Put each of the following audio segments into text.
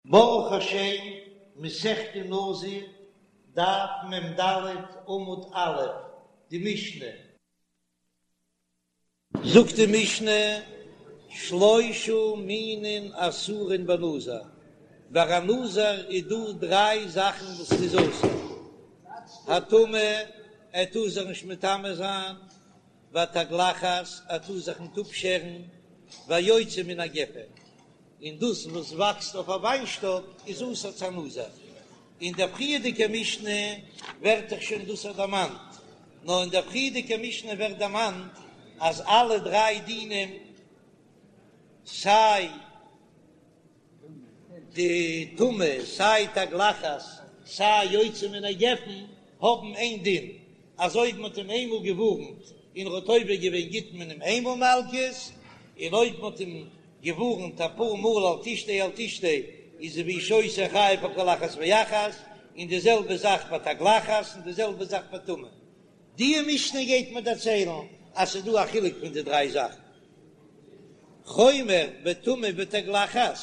ברוך השם, מסכת נזיר, דף מ"ד עמוד א', די משנה. זאגט די משנה, שלושה מינין אסורין בנזיר, ביי א נזיר איז דא דריי זאכן וואס איז אסור, הטומאה, ער טאר זיך נישט מטמא זיין, והתגלחת, ער טאר זיך ניט אפשערן, והיוצא מן הגפן, און דאס וואס וואקסט אויף א וויינשטאק איז אסור צו א נזיר. אין דער פריערדיגער משנה ווערט דאך שוין דאס דערמאנט, נאר אין דער פריערדיגער משנה ווערט דערמאנט אז אלע דריי דינים, סיי די טומאה, סיי תגלחת, סיי יוצא מן הגפן, האבן איין דין, אז אויב מ'האט אים איינמאל געווארנט און ער האט עובר געווען גיט מען אים איינמאל מלקות, און אויב מ'האט אים געווארנט אפאר מאל אל תשתה אל תשתה איז והוא שותה חייב על כל אחת ואחת, און די זעלבע זאך ביי תגלחת און די זעלבע זאך ביי טומאה. די משנה גייט מיר דערציילן אז ס'איז דא א חילוק פון די דריי זאכן. חומר בטומאה ובתגלחת,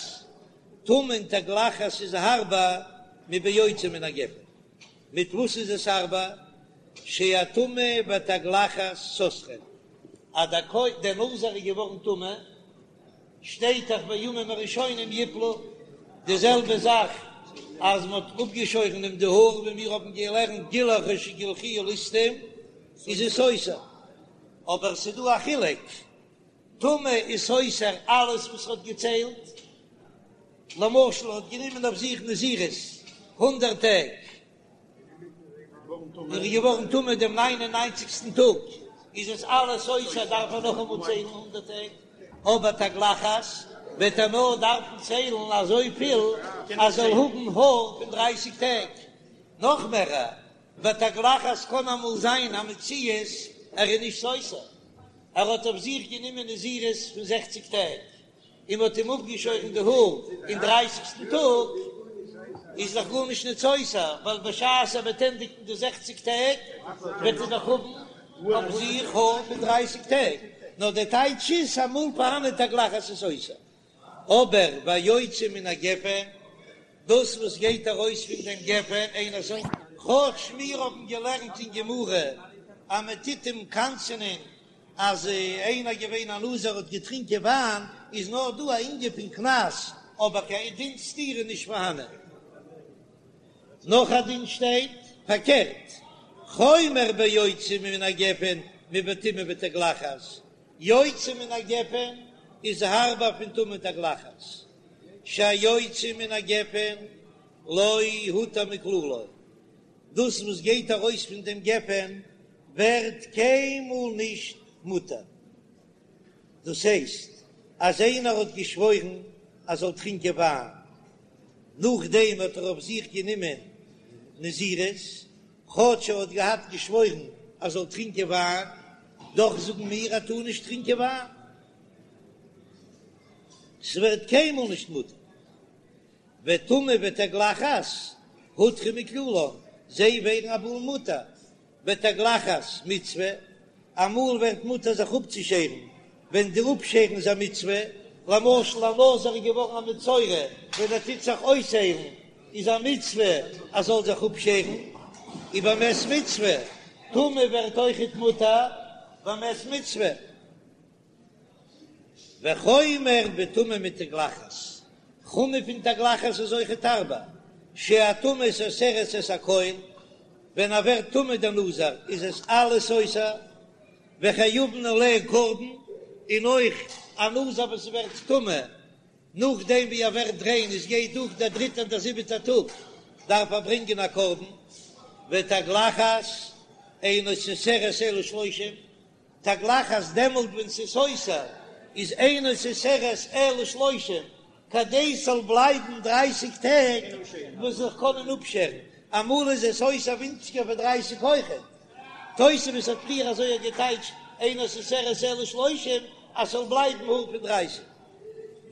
טומאה און תגלחת איז הארבער מביוצא מן הגפן. מיט וואס איז עס הארבער? שהטומאה והתגלחת סותרין. אז דער כהן דער נזיר איז געווארן טמא, שטייט דאך בימים הראשונים יפלו, די זעלבע זאך אז מען האט אפגעשוירן אים די האר, ווי מיר האבן געלערנט גילח או שגלחוהו ליסטים, איז עס סותר, אבער עס איז דא א חילוק, טומאה איז סותר אלעס וואס ער האט געציילט, למשל ער האט גענומען אויף זיך נזירות הונדערט טעג, און איז געווארן טמא דעם ניין און ניינציגסטן טאג, איז עס אלעס סותר, דארף ער נאכאמאל ציילן הונדערט טעג, אבער תגלחת וועט ער נאר דארפן ציילן אזויפיל אז זאל האבן האר פון דרייסיג טעג, נאך מער, ביי תגלחת קען אמאל זיין א מציאות ער איז נישט סותר, ער האט אויף זיך גענומען נזירות פון זעכציג טעג, און מ'האט אים אפגעשוירן די האר אין דרייסיגסטן טאג, איז דאך גארנישט ניט סותר, ווייל בשעת ער וועט ענדיגן די זעכציג טעג, וועט ער דאך האבן אויף זיך האר פון דרייסיג טעג, נאר דער טייטש איז אמאל פארהאן תגלחת איז סותר, אבער והיוצא מן הגפן, דאס וואס גייט ארויס פון דעם גפן אינו סותר. כאטש מיר האבן געלערנט אין גמרא אז מען טוט אים קנס'ענען אז איינער געווען א נזיר האט געטרינקען וויין, איז נאר דא א ענין פון קנס, אבער קיין דין סתירה איז נישט פארהאנען. נאך א דין שטייט פארקערט, חומר ביוצא מן הגפן מבטומאה ותגלחת, יוצא מן הגפן איז הארבער פון טומאה ותגלחת, שהיוצא מן הגפן לא הותר מכללו, דאס וואס גייט ארויס פון דעם גפן ווערט קיינמאל נישט מותר. דאס הייסט אז איינער האט געשוואוירן אז זאל טרינקען וויין, נאכדעם האט ער אויף זיך גענומען נזירות, כאטש ער האט געהאט געשוואוירן אז זאל טרינקען וויין, דאך זאגן מיר ער טאר נישט טרינקען וויין, ס'ווערט קיינמאל נישט מותר. וטומאה ותגלחת הותרו מכללן, זיי ווערן אמאל מותר, ותגלחת מצוה, אמאל ווערט מותר זיך אפצושערן ווען די אפשערן איז א מצוה, למשל א נזיר איז געווארן א מצורע ווען ער טוט זיך אויסהיילן איז א מצוה ער זאל זיך אפשערן, ובמת מצוה, טומאה ווערט אויכעט מותר במת מצוה. וחומר בטומאה מתגלחת, חומר פון תגלחת איז אויכעט הארבער, שהטומאה סותרת את הכל, ווען ער ווערט טמא דער נזיר איז עס אלעס סותר, וחייבין עליה קרבן, און אויך א נזיר וואס ווערט טמא נאכדעם ווי ער ווערט ריין עס גייט דורך דער דריטער און דער זיבעטער טאג דארף ער ברענגען א קרבן, ותגלחת אינה סותרת אלא שלושים. תגלחת דעמאלט ווען ס'איז סותר איז אינה סותרת אלא שלושים כדי ס'זאל בלייבן דרייסיג טעג וואס זיך קענען אפשערן, אמאל איז עס סותר ווינציגער פון דרייסיג אויכעט, תוספות האט פריער אזוי געטייטשט אינה סותרת אלא שלושים אז ס'זאל בלייבן האר פון דרייסיג,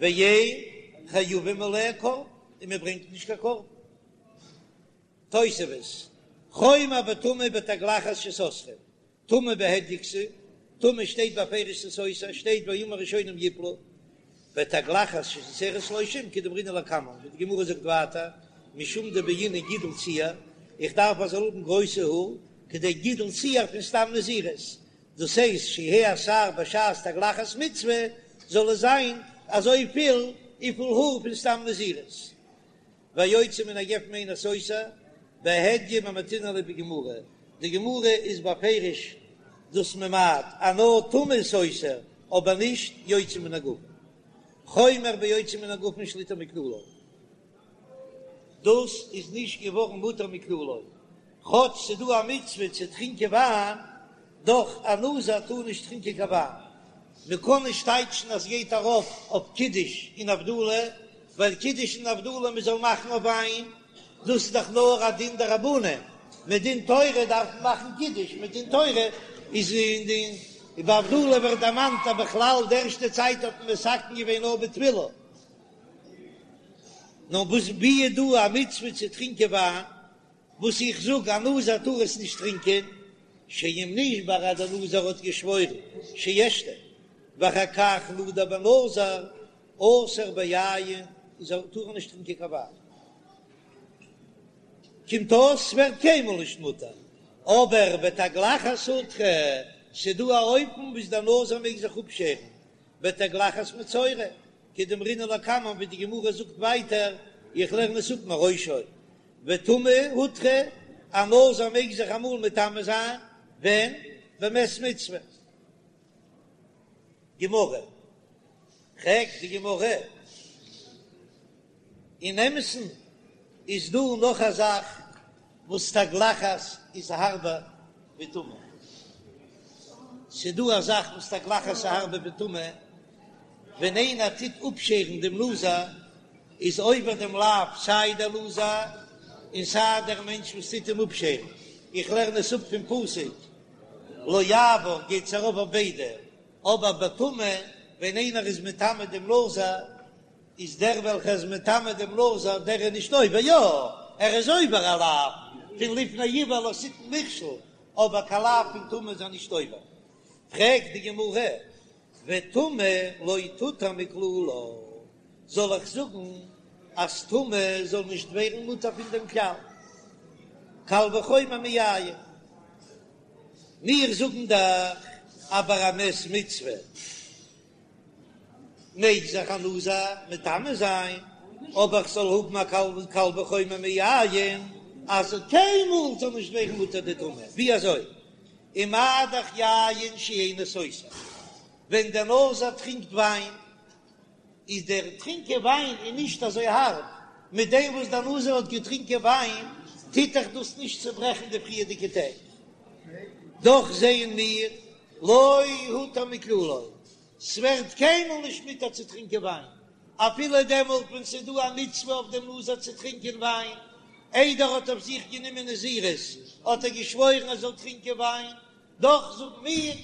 ואין חייבים עליה קרבן און מ'ברענגט נישט קיין קרבן. תוספות, חומר בטומאה ובתגלחת שסותרין, טומאה בהדיא כתיב, טומאה שטייט בפירוש ס'איז סותר, שטייט בימים הראשונים יפלו. ותגלחת שסותרת שלושים כדאמרינן לקמן, ווי די גמרא זאגט ווייטער, משום דבעינן גידול שער, איך דארף ער זאל האבן גרויסע האר, כדי גידול שער פון סתם נזירות, דאס הייסט שיהא השער בשעת תגלחת מצוה, זאל עס זיין אזוי פיל וויפיל האר פון סתם נזירות. והיוצא מן הגפן אינו סותר, בהדיא ממעטינן ליה בגמרא, די גמרא איז בפירוש דאס ממעט אז נאר טומאה איז סותר אבער נישט יוצא מן הגפן, חומר ביוצא מן הגפן שלא יותר מכללו, דאס איז נישט געווארן מותר מכללו, כאטש ס'דא א מצוה צו טרינקען וויין, דאך א נזיר טאר נישט טרינקען קיין וויין, מען קען נישט טייטשן אז ס'גייט ארויף אויף קידוש און הבדלה, ווייל קידוש און הבדלה מען זאל מאכן אויף וויין, דאס איז דאך נאר א דין דרבנן, מדין תורה דארף מען מאכן קידוש, מדין תורה איז אין די ביי הבדלה ווערט דערמאנט אז בכלל די ערשטע צייט האט מען מתקן געווען נאר בתפילה, נאר וואס ווי איז דא א מצוה צו טרינקען וויין? וואס איך זאג א נזיר טאר עס נישט טרינקען, שאם נשבע אז דער נזיר האט געשוואוירן שישתה, ואחר כך נדר בנזיר אסור ביין, איז ער טאר ער נישט טרינקען קיין וויין, קומט אויס ס'ווערט קיינמאל נישט מותר, אבער ותגלחת הותרה, ס'דא א אופן וואס דער נזיר מעג זיך אפשערן, בתגלחת מצורע, כדאמרינן לקמן ווי די גמרא זאגט ווייטער, איך לערן עס אפ מראשו, וטומאה הותרה, א נזיר מעג זיך אמאל מטמא זיין, ווען? במת מצוה. גמרא, פרעגט די גמרא, אין אמת'ן איז דא נאך א זאך וואס תגלחת איז הארבער ווי טומאה, ס'דא א זאך וואס תגלחת איז הארבער ווי טומאה, ווען איינער טוט אפשערן דעם נזיר איז עובר דעם לאו סיי דער נזיר און סיי דער מענטש וואס טוט אים אפשערן, איך לערן עס אפ פון פסוק לא יעבור גייט עס ארויף אויף ביידע, אבער בטומאה ווען איינער איז מטמא דעם נזיר איז דער וועלכער איז מטמא דעם נזיר דער איז נישט עובר, יא ער איז עובר א לאו פון לפני עור לא תתן מכשול, אבער קיין לאו פון טומאה איז ער נישט עובר. פרעגט די גמרא, וטומאה לא תותר מכללה, זאל איך זאגן אז טומאה זאל נישט ווערן מותר פון דעם כלל, קל וחומר מיין, מיר זאגן דאך אז ביי א מת מצוה מעג זיך א נזיר מטמא זיין, אבער איך זאל האבן א קל וחומר מיין אז קיינמאל זאל נישט ווערן מותר די טומאה, ווי אזוי? ומה דאך יין שאינו סותר, ווען דער נזיר טרינקט וויין, איז דער טרינקען וויין איז נישט אזוי הארב, מיט דעם וואס דער נזיר האט געטרינקען וויין, טוט דאך דאס נישט צוברעכן די פריערדיגע טעג. דאך זעען מיר, לא הותר מכללו, ס'ווערט קיינמאל נישט מותר צו טרינקען וויין, אפילו דעמאלט ווען ס'איז דא א מצוה אויף דעם נזיר צו טרינקען וויין, איידער ער האט אויף זיך גענומען נזירות האט ער געשוואוירן ער זאל טרינקען וויין, דאך זאגן מיר,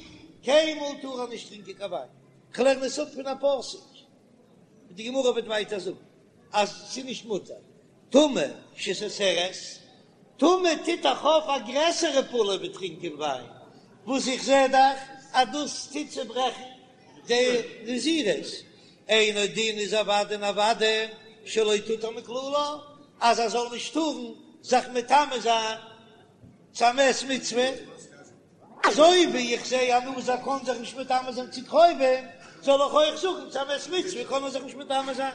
קיינמאל טאר ער נישט טרינקען קיין וויין. כ'לערן עס אפ פון א פסוק, ווי די גמרא וועט ווייטער זאגן אז ס'איז נישט מותר. טומאה שסותרת, טומאה טוט דאך אויף א גרעסערע פעולה ווי טרינקען וויין, וואס איך זע דאך אז דאס טוט צוברעכן די נזירות, אינו דין איז אוודאי און אוודאי שלא תותר מכללה, אז ער זאל נישט טארן זיך מטמא זיין צו א מת מצוה. אזוי ווי איך זע א נזיר קען זיך נישט מטמא זיין צו קרובים, זאל איך אויך זאגן צו א מת מצוה קען ער זיך נישט מטמא זיין?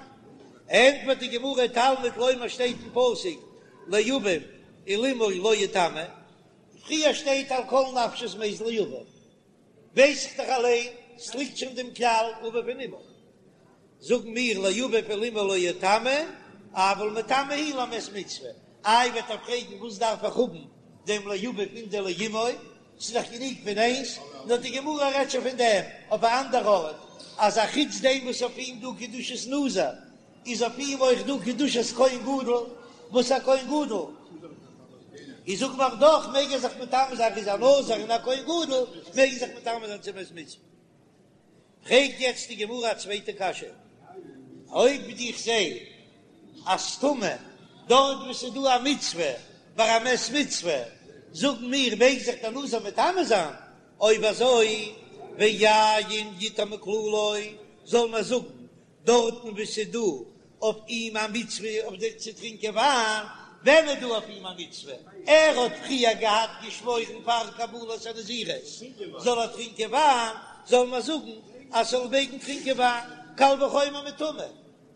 ענטפערט די גמרא, תלמוד לומר שטייט אין פסוק לאביו ולאמו לא יטמא, פריער שטייט על כל נפשות מת לאביו, ווייס איך דאך אליין, ס'ליגט שוין דעם כלל אביו און אמו. זאגן מיר לאביו ולאמו לא יטמא, אבל מטמא הוא למת מצוה. איי וועט ער פרעגן וואס דארף איך האבן דעם לאביו און דעם לאמו, ס'איז דאך גענוג פון איינס, נאר די גמרא רעדט שוין פון דעם אויף א אנדער ארט, אז א חוץ דעם וואס אויף אים דא קדושת נזיר, איז אויף אים אויך דא קדושת כהן גדול, וואס א כהן גדול איז זאגט מען דאך מעג ער זיך מטמא זיין, איז א נזיר און א כהן גדול מעג ער זיך מטמא זיין צו מת מצוה. פרעגט יעצט די גמרא א צווייטע קשיא, אויב איך זע אז טומאה דארט וואו ס'איז דא א מצוה ביי א מת מצוה, זאגן מיר מעג זיך דער נזיר מטמא זיין, אויב אזוי ויין יותר מכללו, זאל מען זאגן. דארטן וואו ס'איז דא אויף אים א מצוה אויף די צו טרינקען וויין, ווען איז דא אויף אים א מצוה? ער האט פריער געהאט געשוואוירן פאר קבלת הנזירות זאל ער טרינקען וויין, זאל מען זאגן אז ס'זאל מעגן טרינקען וויין, קל וחומר מטומאה,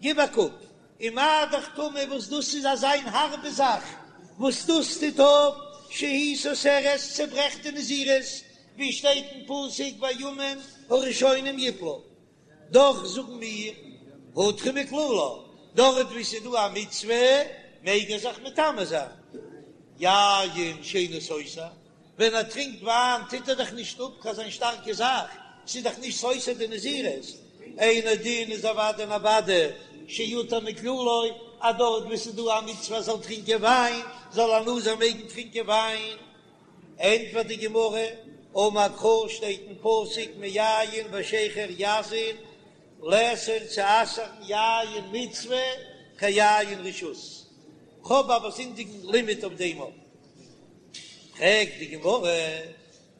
גיב א קוק, ומה דאך טומאה וואס דאס איז אזא הארבע זאך וואס דאס טוט אויף שהיא סותרת צעברעכט די נזירות, ווי שטייט אין פסוק והימים הראשונים יפלו, דאך זאגן מיר הותרה מכללה, דארט וואו ס'איז דא א מצוה מעג ער זיך מטמא זיין, יין שאינו סותר, ווען ער טרינקט וויין טוט ער דאך נישט אפ קיין זיין שטארקע זאך, ס'איז דאך נישט סותר די נזירות, אינו דין איז אוודאי און אוודאי שיותר מכללו, אז דארט וואו ס'איז דא א מצוה ער זאל טרינקען וויין, זאל א נזיר מעגן טרינקען וויין. ענטפערט די גמרא, אמר קרא שטייט אין פסוק מיין ושכר יזיר, לאסור צו אסר'ן יין מצוה כיין רשות, כ'האב א באזונדערן לימוד אויף דעם אויך. פרעגט די גמרא,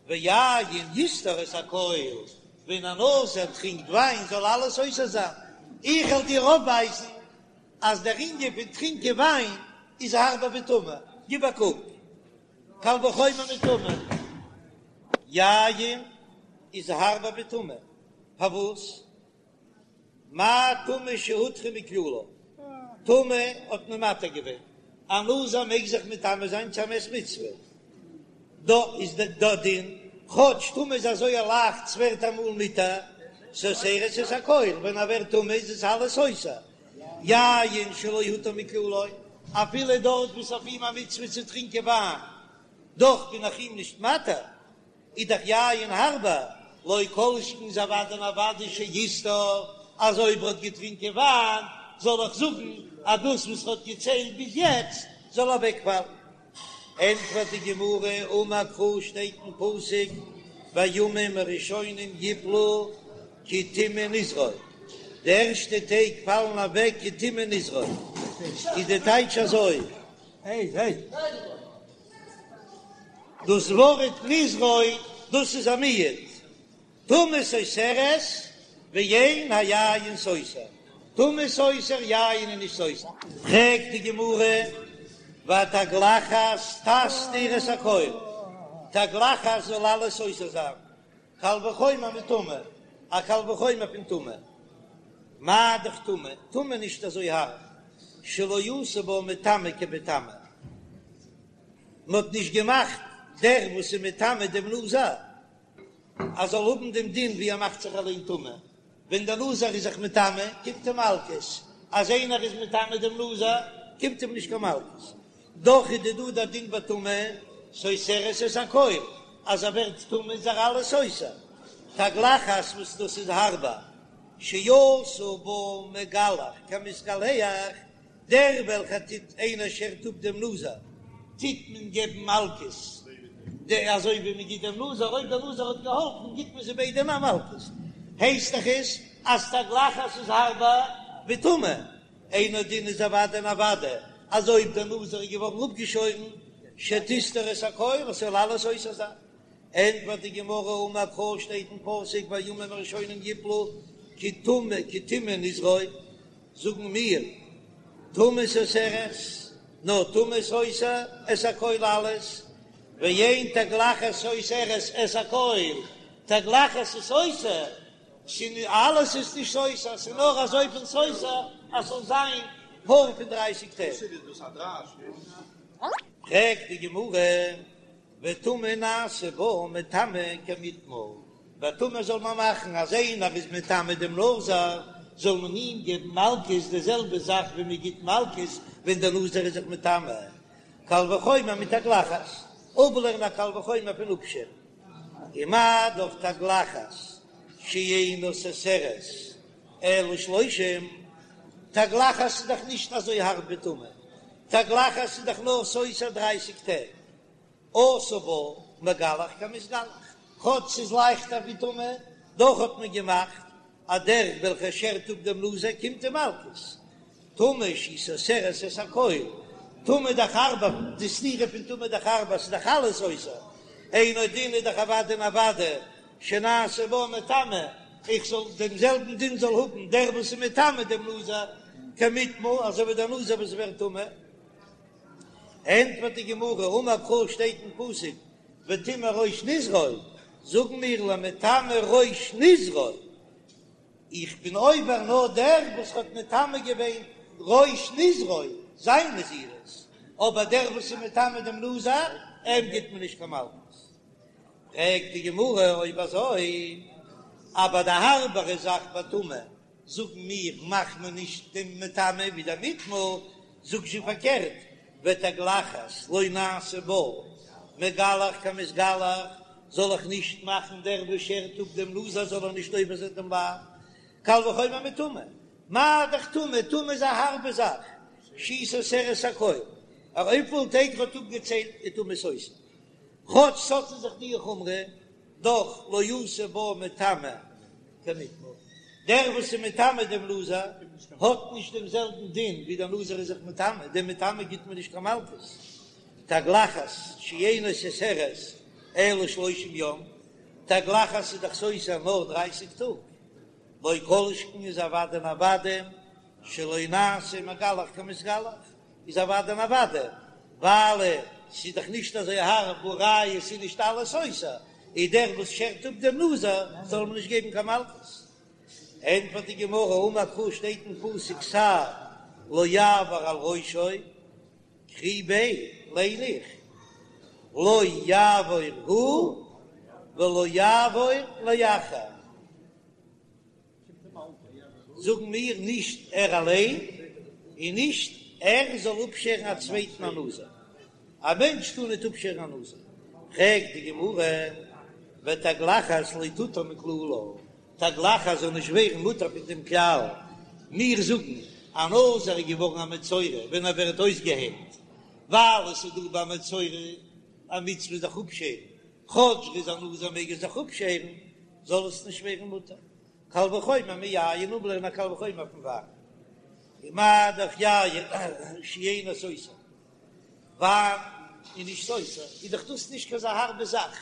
ויין יסתור את הכל, ווען א נזיר טרינקט וויין זאל אלעס סותר זיין, איך וועל דיר אויפווייזן אז דער ענין פון טרינקען וויין איז הארבער ווי טומאה, גיב א קוק, קל וחומר מטומאה, יין איז הארבער ווי טומאה, פארוואס? מה טומאה שהותרה מכללה, טומאה האט מען מתיר געווען, א נזיר מעג זיך מטמא זיין צו א מת מצוה, דא איז דער דין, כאטש טומאה איז אזוי לייכט ס'ווערט אמאל מותר, סותרת את הכל, ווען ער ווערט טמא איז עס אלעס סותר, יין שלא הותר מכללו, אפילו דארט וואס אויף אים א מצוה צו טרינקען וויין, דאך בין איך אים נישט מתיר, איז דאך יין הארבער, לא כל שכן איז אוודאי און אוודאי שיסתור, אז אויב ער האט געטרינקען וויין, זאל איך זאגן אז דאס וואס ער האט געציילט ביז יעצט זאל אוועקפאלן. ענטפערט די גמרא, אמר קרא שטייט אין פסוק והימים הראשונים יפלו כי טמא נזרו, די ערשטע טעג פאלן אוועק כי טמא נזרו, איז די טייטש אזוי, דאס ווארט נזרו דאס איז א מיעוט, טומאה סותרת ואין היין סותר, טומאה סותר יין איז נישט סותר. פרעגט די גמרא, והתגלחת תסתיר את הכל, תגלחת זאל אלעס סותר זיין, קל וחומר מטומאה, א קל וחומר פון טומאה, מה דאך טומאה, טומאה נישט אזוי הארב, שלא עשו בה מטמא כמטמא. מען האט נישט געמאכט דער וואס איז מטמא דעם נזיר אז זאל האבן דעם דין ווי ער מאכט זיך אליין טמא, ווען דער נזיר איז זיך מטמא קומט אים מלקות, אז איינער איז מטמא דעם נזיר קומט אים נישט קיין מלקות, דאך איז דא דער דין ביי טומאה סותרת את הכל, אז ער ווערט טמא איז ער אלעס סותר, תגלחת וואס דאס איז הארבער, שעשה בה מגלח כמתגלח, דער וועלכער טוט איינער שערט אפ דעם נזיר, טוט מען געבן מלקות, די אזוי ווי מען גיט דעם נזיר, אויב דער נזיר האט געהאלפן גיט מען זיי ביידע א מלקות, הייסט דאך עס אז תגלחת איז הארבער ווי טומאה, אינו דין איז אוודאי און אוודאי אז אויב דער נזיר איז געווארן אפגעשוירן שתסתור את הכל עס זאל אלעס סותר זיין. ענטפערט די גמרא אמר קרא שטייט אין פסוק והימים הראשונים יפלו כי טמא כי טמא נזרו, זאגן מיר טומאה סותרת, נאר טומאה סותר את הכל אלעס, ואין תגלחת סותרת את הכל, תגלחת איז סותר, אלעס איז נישט סותר, ס'איז נאר אזויפיל סותר אז ס'זאל זיין האר פון דרייסיג טעג. פרעגט די גמרא. וטומאה נעשה בה מטמא כמיטמא, ביי טומאה זאל מען מאכן אז איינער איז מטמא דעם נזיר זאל מען אים געבן מלקות די זעלבע זאך ווי מען גיט מלקות ווען דער נזיר איז זיך מטמא, קל וחומר מתגלחת, אפלערנען א קל וחומר פון אפשערן, ומה דאך תגלחת שאינה סותרת אלא שלושים, תגלחת איז דאך נישט אזוי הארב ווי טומאה, תגלחת איז דאך נאר סותר דרייסיג טעג. עשה בה מגלח כמתגלח, כאטש ס'איז לייכטער ווי טומאה, דאך האט מען געמאכט אז דער וועלכער שערט אפ דעם נזיר קומט אים מלקות. טומאה שהיא סותרת את הכל, טומאה דאך הארבער, די סתירה פון טומאה דאך הארבער, ס'איז דאך אלעס סותר, אינו דין איז דאך אוודאי און אוודאי שנעשה בה מטמא. איך זאל דעם זעלבן דין זאל האבן דער וואס איז מטמא דעם נזיר כמיטמא אזוי ווי דער נזיר וואס ווערט טמא. ענטפערט די גמרא, אמר קרא שטייט אין פסוק וטמא ראש נזרו, זאגן מיר למטמא ראש נזרו, איך בין עובר נאר דער וואס האט מטמא געווען ראש נזרו, זיין נזירות, אבער דער וואס איז מטמא דעם נזיר, אים גיט מען נישט קיין מלקות. פרעגט די גמרא, אויב אזוי, אבער די הארבערע זאך ביי טומאה, זאגן מיר, מאכט מען נישט דעם מטמא ווי דער מיטמא, זאג זשע פארקערט, ותגלחת לא נעשה בה מגלח כמתגלח, זאל איך נישט מאכן דער וואס שערט אפ דעם נזיר זאל ער נישט עובר זיין דעם לאו, קל וחומר מטומאה, מה דאך טומאה, טומאה איז א הארבע זאך, שהיא סותרת הכל, אויף וויפיל טעג ער האט אפגעציילט איז טומאה סותר, כאטש ס'האט אין זיך די חומרא, דאך לא עשו בה מטמא כמיטמא, דער וואס איז מטמא דעם נזיר האט נישט דעם זעלבן דין ווי דער נזיר איז זיך מטמא, דעם מטמא גיט מען נישט קיין מלקות, תגלחת שאינה סותרת אלא שלושים יום, תגלחת איז דאך סותר נאר דרייסיג טאג, לא כל שכן איז אוודאי און אוודאי שלא נעשה מגלח כמתגלח, איז אוודאי און אוודאי, ווייל ס'איז דאך נישט אזוי הארב והא ראיה ס'איז נישט אלעס סותר, איז דער וואס שערט אפ דעם נזיר זאל מען נישט געבן קיין מלקות. ענטפערט די גמרא, אמר קרא שטייט אין פסוק שער לא יעבור על ראשו, קרי ביה ליין איך לא יעבור הוא ולא יעבור לאחר. זאגן מיר נישט ער אליין און נישט ער זאל אפשערן א צווייטן א נזיר, א מענטש טאר ניט אפשערן א נזיר, פרעגט די גמרא, ותגלחת לא תותר מכללה, תגלחת זאל נישט ווערן מותר פון דעם כלל, מיר זאגן א נזיר איז געווארן א מצורע ווען ער ווערט אויסגעהיילט, ווייל עס איז דא ביי מצורע א מצוה זיך אפשערן, כאטש ער איז א נזיר מעג ער זיך אפשערן, זאל עס נישט ווערן מותר. קל וחומר מיין, אפלערנען א קל וחומר פון וויין. ומה דאך יין שאינו סותר, וויין איז נישט סותר, איז דאך דאס נישט קיין אזא הארבע זאך,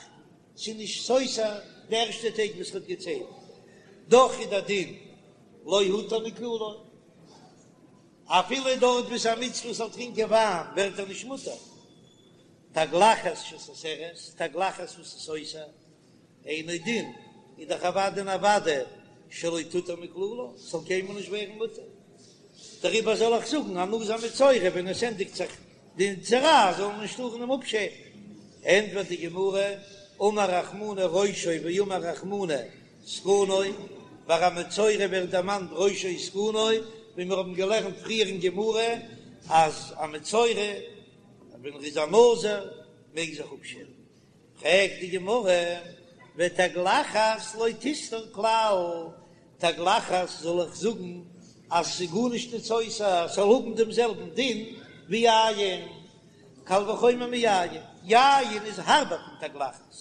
ס'איז נישט סותר די ערשטע טעג וואס ר'האט געציילט, דאך איז דער דין לא הותר מכללו, אפילו דארט וואו ס'איז א מצוה זאל טרינקען וויין ווערט ער נישט מותר. תגלחת שסותרת, תגלחת וואס איז סותר, אינו דין, איז דאך אוודאי און אוודאי שלא תותר מכללה, ס'זאל קיינמאל נישט ווערן מותר. דעריבער זאל איך זאגן א נזיר מצורע ווען עס ענדיגט זיך די צרעת זאל מען נישט טארן אים אפשערן. ענטפערט די גמרא, אמר רחמנא ראשו ואמר רחמנא זקנו, ביי א מצורע ווערט דערמאנט ראשו וזקנו, ווי מיר האבן געלערנט פריער אין גמרא אז א מצורע ווען ער איז א נזיר מעג זיך אפשערן. פרעגט די גמרא, ותגלחת לא תסתור כלל, תגלחת זאל איך זאגן אז ס'איז גארנישט נישט סותר, ס'זאל האבן דעם זעלבן דין ווי יין, קל וחומר מיין, יין איז הארבער פון תגלחת,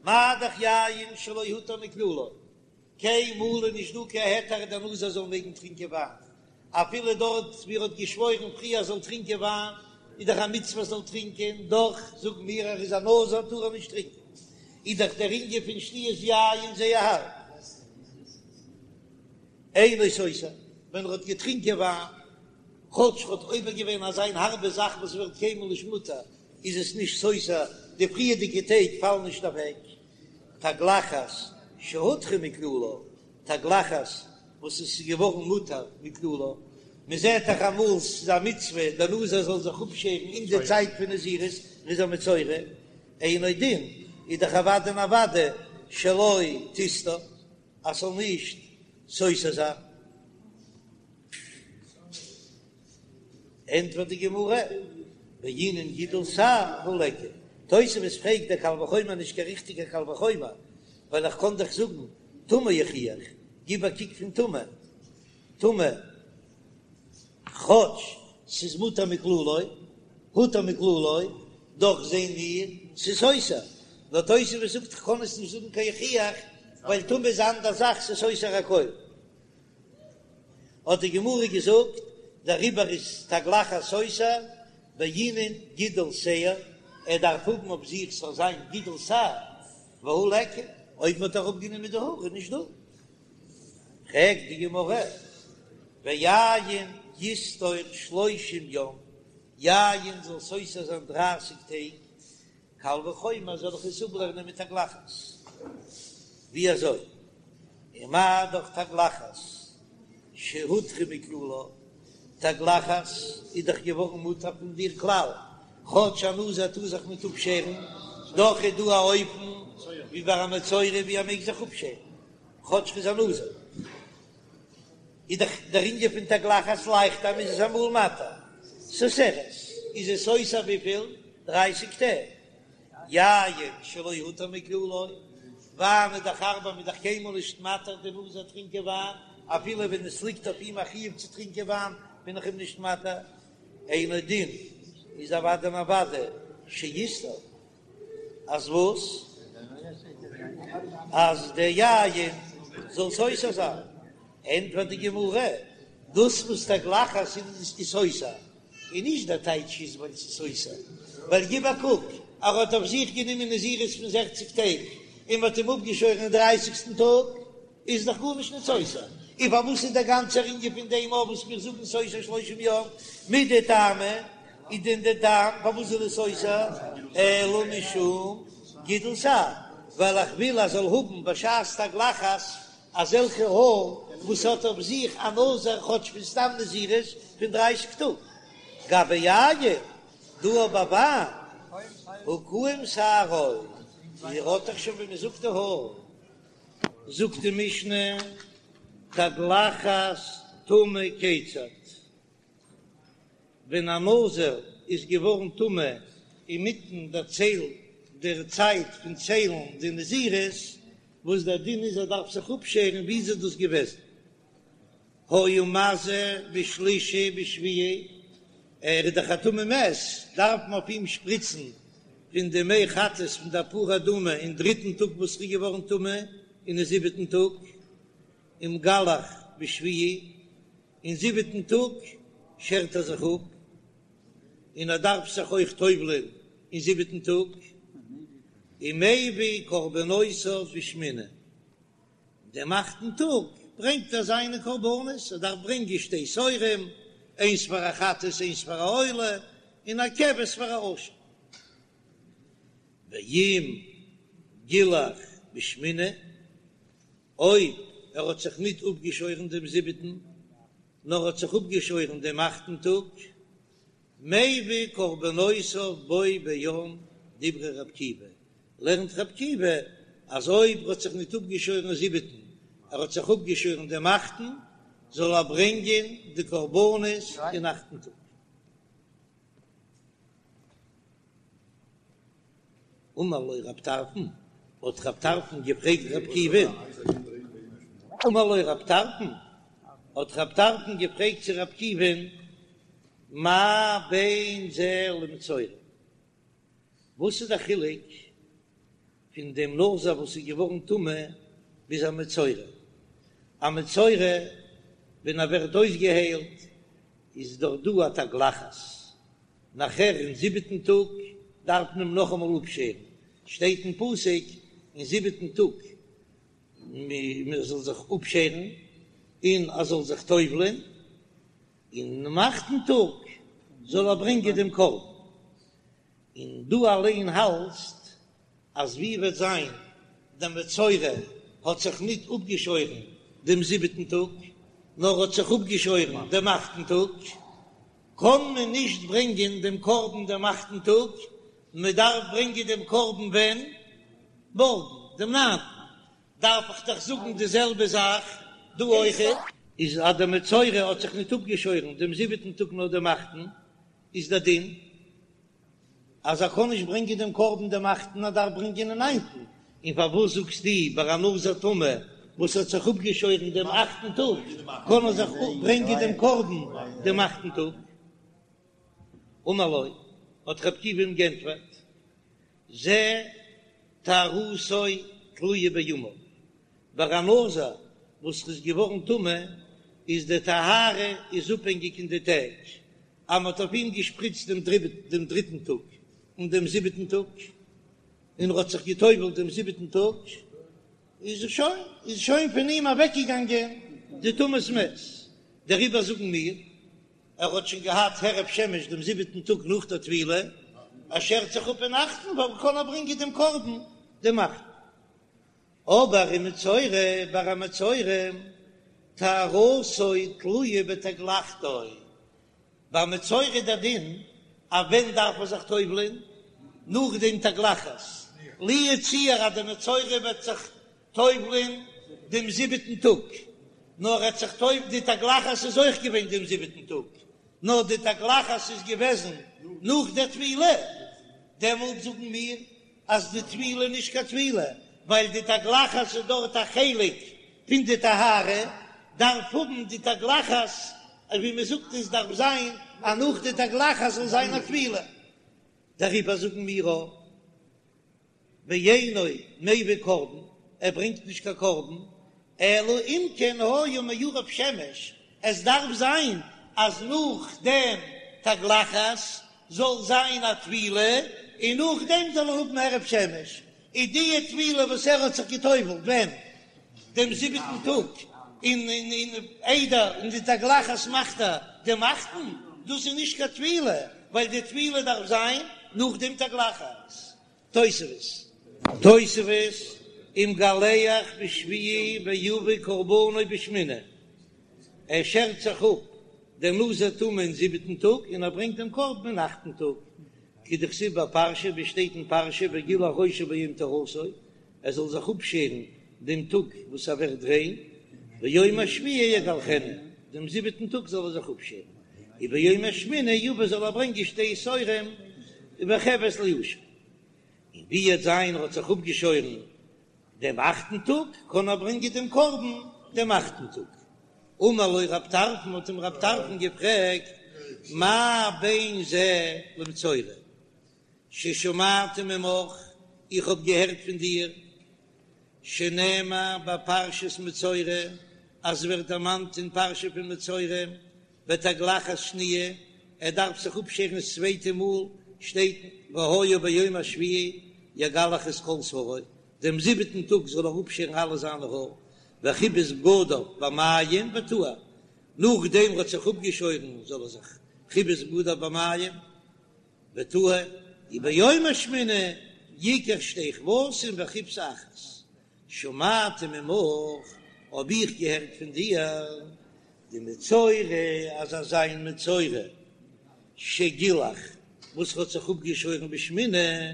מה דאך יין שלא הותר מכללו, קיינמאל איז נישט דא קיין היתר דער נזיר זאל מעגן טרינקען וויין, אפילו דארט ווי ער האט געשוואוירן פריער זאל טרינקען וויין, איז דאך א מצוה זאל טרינקען, דאך זאגן מיר ער איז א נזיר טאר ער נישט טרינקען, איז דאך דער ענין פון שתיית יין זייער הארב. אינו סותר, ווען ער האט געטרינקען וויין, כאטש ער האט עובר געווען אזא הארבע זאך וואס ווערט קיינמאל נישט מותר, איז עס נישט סותר, די פריערדיגע טעג פאלן נישט אוועק. תגלחת שהותרה מכללה, תגלחת וואס עס איז געווארן מותר מכללה, מען זעט דאך אמאל ס'איז א מצוה דער נזיר זאל זיך אפשערן אין די צייט פון נזירות, ער איז א מצורע, אינו דין, איז דאך אוודאי און אוודאי שלא תסתור אז ס'זאל נישט סותר זיין. ענטפערט די גמרא, בעינן גידול שער הא ליכא. תוספות פרעגט דער קל וחומר נישט קיין ריכטיגער קל וחומר, ווייל איך קען דאך זאגן טומאה יוכיח, גיב א קוק פון טומאה, טומאה כאטש ס'איז מותר מכללו, הותר מכללו, דאך זעהן מיר ס'איז סותר, נאר תוספות זאגט איך קען עס נישט זאגן קיין יוכיח, ווייל טומאה איז א אנדער זאך ס'איז סותר הכל. האט די גמרא געזאגט, דעריבער איז תגלחת סותר בעינן גידול שער, ער דארף האבן אויף זיך ס'זאל זיין גידול שער, והא ליכא. אויב מ'האט אראפגענומען די האר איז נישט דא. פרעגט די גמרא, ויין יסתור שלושים יום, יין זאל סותר זיין דרייסיג טעג, קל וחומר זאל איך עס אפלערנען מיט תגלחת? ווי אזוי? ומה דאך תגלחת שהותרה מכללה, תגלחת איז דאך געווארן מותר פון דער כלל, כאטש א נזיר טאר זיך ניט אפשערן, דאך איז דא א אופן ווי ביי א מצורע ווי ער מעג זיך אפשערן כאטש ר'איז א נזיר. איז דאך דער ענין פון תגלחת לייכטער מ'איז עס אמאל מתיר. סותרת, איז עס סותר וויפיל? דרייסיג טעג. יין שלא הותר מכללו, וויין איז דאך הארבער מ'איז דאך קיינמאל נישט מתיר די נזיר טרינקען וויין, אפילו ווען עס ליגט אויף אים א חיוב צו טרינקען וויין בין איך אים נישט מתיר, אינו דין איז אוודאי און אוודאי שיסתור. אז וואס? אז דער יין זאל סותר זיין? ענטפערט די גמרא, דאס וואס תגלחת איז סותר, איז נישט דער טייטש איז ווייל ס'איז סותר, ווייל גיב א קוק, ער האט אויף זיך גענומען נזירות פון זעכציג טעג און מ'האט אים אפגעשוירן אין דרייסיגסטן טאג, איז דאך גארנישט נישט סותר, און פארוואס איז דער גאנצער ענין פון דעם אויף וואס מיר זאגן סותר שלושים יום מידי טעמא, איז דען דער טעם פארוואס איז עס סותר אלא משום גידול שער, ווייל איך וויל אז זאל האבן בשעת תגלחת אזעלכע האר וואס האט אויף זיך א נזיר כאטש פון סתם נזירות פון דרייסיג טאג, גבי יין דא ביי וויין הא קאים שערו, ער האט דאך שוין ווי מען זאגט די האר. זאגט די משנה, תגלחת טמא כיצד, ווען א נזיר איז געווארן טמא אינמיטן דער צייל דער צייט פון ציילן די נזירות, וואס דער דין איז ער דארף זיך אפשערן, ווי איז דאס געוועזן? היה מזה בשלישי בשביעי, ער איז דאך א טמא מת, דארף מען אויף אים שפריצן פון די מי חטאת פון די פרה אדומה אין דריטן טאג וואס ער איז געווארן טמא, און אין זיבעטן טאג, ומגלח בשביעי, אין זיבעטן טאג שערט ער זיך אפ, און ער דארף זיך אויך טובל'ען אין זיבעטן טאג, ומביא קרבנותיו בשמיני. דעם אכטן טאג ברענגט ער זיינע קרבנות, ער דארף ברענגען שתי תורים, איינס פאר א חטאת איינס פאר א עולה, און א כבש פאר א אשם. ואם גילח בשמיני, אויב ער האט זיך ניט אפגעשוירן דעם זיבעטן, נאר האט זיך אפגעשוירן דעם אכטן טאג, מביא קרבנותיו בו ביום דברי רבי עקיבא, לערנט רבי עקיבא אז אויב ער האט זיך ניט אפגעשוירן זיבעטן, ער האט זיך אפגעשוירן דעם אכטן, זאל ער ברענגען די קרבנות אין אכטן טאג. אמר לו רב טרפון, האט רב טרפון געפרעגט רבי עקיבא, אמר לו רב טרפון, האט רב טרפון געפרעגט צו רבי עקיבא'ן, מה בין זה למצורע? וואס איז די חילוק פון דעם נזיר וואס איז געווארן טמא ביז א מצורע? א מצורע ווען ער ווערט אויסגעהיילט איז דאך דא א תגלחת, נאכער אין זיבעטן טאג דארף מען אים נאכאמאל אפשערן, שטייט אין פסוק אין זיבעטן טאג מען זאל זיך אפשערן און ער זאל זיך טובל'ען, און אינעם אכטן טאג זאל ער ברענגען דעם קרבן, און דו אליין האלטסט אז ווי וועט זיין דער מצורע האט זיך ניט אפגעשוירן דעם זיבעטן טאג, נאר האט זיך אפגעשוירן דעם אכטן טאג, קען מען נישט ברענגען דעם קרבן דעם אכטן טאג, מען דארף ברענגען דעם קרבן ווען? מארגן, דעם ניינטן. דארף איך דאך זאגן די זעלבע זאך דא אויכעט. איז אז דער מצורע האט זיך ניט אפגעשוירן דעם זיבעטן טאג נאר דעם אכטן, איז דער דין אז ער קען נישט ברענגען דעם קרבן דעם אכטן, ער דארף ברענגען אין ניינטן. און פארוואס זאגסטו ביי א נזיר טמא וואס האט זיך אפגעשוירן דעם אכטן טאג קען ער זיך ברענגען דעם קרבן דעם אכטן טאג? אמר לו, האט רבי עקיבא אים גענטפערט, זה טהרתו תלויה בימיו, ביי א נזיר וואס איז געווארן טמא איז די טהרה איז אפהענגיק אין די טעג, אז מען האט אויף אים געשפריצט דעם דריטן טאג און דעם זיבעטן טאג, און ער האט זיך גע'טובל'ט דעם זיבעטן טאג. איז שוין איז שוין פון אים אוועקגעגאנגען די טומאת מת, דעריבער זאגן מיר, ער האט שוין געהאט הערב שמש דעם זיבעטן טאג נאך דער טבילה, ער שערט זיך אפ אין אכטן ווייל קען ער ברענגען דעם קרבן דעם אכטן. אבער ומצורע ביי א מצורע טהרתו תלויה בתגלחתו, ביי מצורע איז דער דין אז ווען דארף מען זיך טובל'ען? נאך דעם תגלחת, לו יצוייר אז דער מצורע וועט זיך טובל'ען דעם זיבעטן טאג, נאר ער האט זיך טוב די תגלחת איז אויך געווען דעם זיבעטן טאג, נאר די תגלחת איז געוועזן נאך דער טבילה, דעמאלט זאגן מיר אז די טבילה איז נישט קיין טבילה, ווייל די תגלחת איז דארט א חלק פון די טהרה, דארף האבן די תגלחת, ווי מען זאגט עס דארף זיין אז נאך די תגלחת זאל זיין א טבילה, דעריבער זאגן מיר אויך ואינו מביא קרבן, ער ברענגט נישט קיין קרבן, אלא אם כן היה מעורב שמש, עס דארף זיין אז נאך דעם תגלחת זאל זיין א טבילה, און נאכדעם זאל ער האבן הערב שמש, איז די טבילה וואס ער האט זיך גע'טובל'ט ווען? דעם זיבעטן טאג, און און איידער און די תגלחת מאכט ער דעם אכטן, דאס איז נישט קיין טבילה, ווייל די טבילה דארף זיין נאך דעם תגלחת. תוספות. תוספות, ומגלח בשביעי ויביא קרבנו בשמיני, ער שערט זיך אפ דער נזיר טמא אין זיבעטן טאג און ער ברענגט דעם קרבן אין אכטן טאג, כדכתיב בפרשה, ווי שטייט אין פרשה וגילח ראשו ביום טהרתו, ער זאל זיך אפשערן דעם טאג וואס ער ווערט ריין, ביום השביעי יגלחנו, דעם זיבעטן טאג זאל ער זיך אפשערן, וביום השמיני יביא זאל ער ברענגען שתי תורים וכבש לאשם. און ווי וועט זיין ער האט זיך אפגעשוירן דעם אכטן טאג, קען ער ברענגען דעם קרבן דעם אכטן טאג. אמר לו רב טרפון, האט אים רב טרפון געפרעגט, מה בין זה למצורע, ששמעתי ממך, איך האב געהערט פון דיר, שנאמר בפרשת מצורע, אז ווערט דערמאנט אין פרשה פון מצורע, בתגלחת שניה, ער דארף זיך אפשערן דאס צווייטע מאל, שטייט והיה ביום השביעי יגלח את כל שערו, דעם זיבעטן טאג זאל ער אפשערן אלע זיינע האר, וכיבס בגדיו במים וטהר, נאכדעם ער האט זיך אפגעשוירן זאל ער זיך כיבס בגדיו במים וטהר, וביום השמיני יקח שתי כבשים וכבשה אחת, שמעתי ממך, האב איך געהערט פון דיר, דמצורע אז אזא איין מצורע שגילח וואס האט זיך אפגעשוירן בשמיני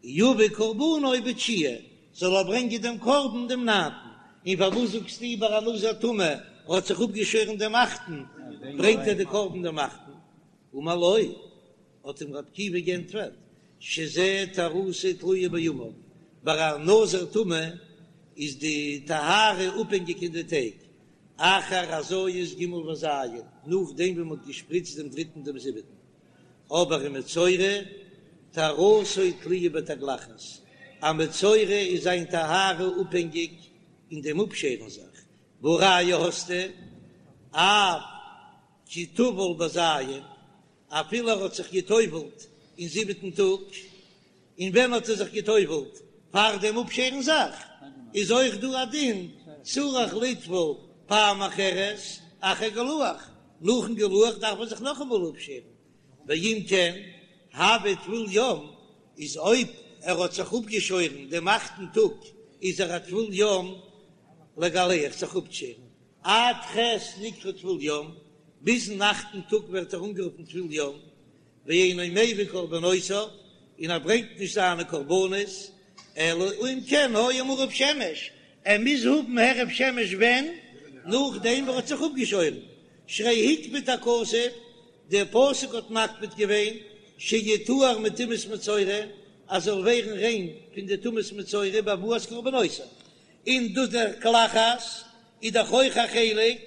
יביא קרבנו בתשיעי, זאל ער ברענגען דעם קרבן דעם ניינטן, און פארוואס זאגסטו ביי א נזיר טמא האט זיך אפגעשוירן דעם אכטן, ברענגט ער די קרבן דעם אכטן? אמר לו, האט אים רבי עקיבא גענטפערט, שזה טהרתו תלויה בימיו, ביי א נזיר טמא איז די טהרה אפהענגיק אין די טעג, אחר הזיות ג' וז', נאכדעם ווי מען האט געשפריצט דעם דריטן דעם זיבעטן, אבער ומצורע טהרתו תלויה בתגלחת, א מצורע איז זיין טהרה אפהענגיק אין דעם אפשערן זיך, והא ראיה האסטו, אף כי טבל בז', אפילו ער האט זיך גע'טובל'ט אין זיבעטן טאג, און ווען האט ער זיך גע'טובל'ט? פאר דעם אפשערן זיך, איז אויך דא א דין צריך לטבול פעם אחרת אחר גילוח, נאכן גילוח דארף מען זיך נאכאמאל אפשערן, ואם כן הוי טבול יום, איז אויב ער האט זיך אפגעשוירן דעם אכטן טאג איז ער א טבול יום לגלח זיך אפשערן, עד ח' נקרא טבול יום, ביזן אכטן טאג ווערט ער אנגערופן טבול יום, ואינו מביא קרבנותיו, און ער ברענגט נישט זיינע קרבנות, אלא אם כן היה מעורב שמש, ער מוז האבן הערב שמש ווען? נאכדעם וואס ער האט זיך אפגעשוירן, שהרי הקפיד הכתוב, דער פסוק האט מקפיד געווען, שיטהר מטומאת מצורע, אז זאל ווערן ריין פון די טומאת מצורע בהבאת קרבנותיו, און דאס דער תגלחת איז דאך אויך א חלק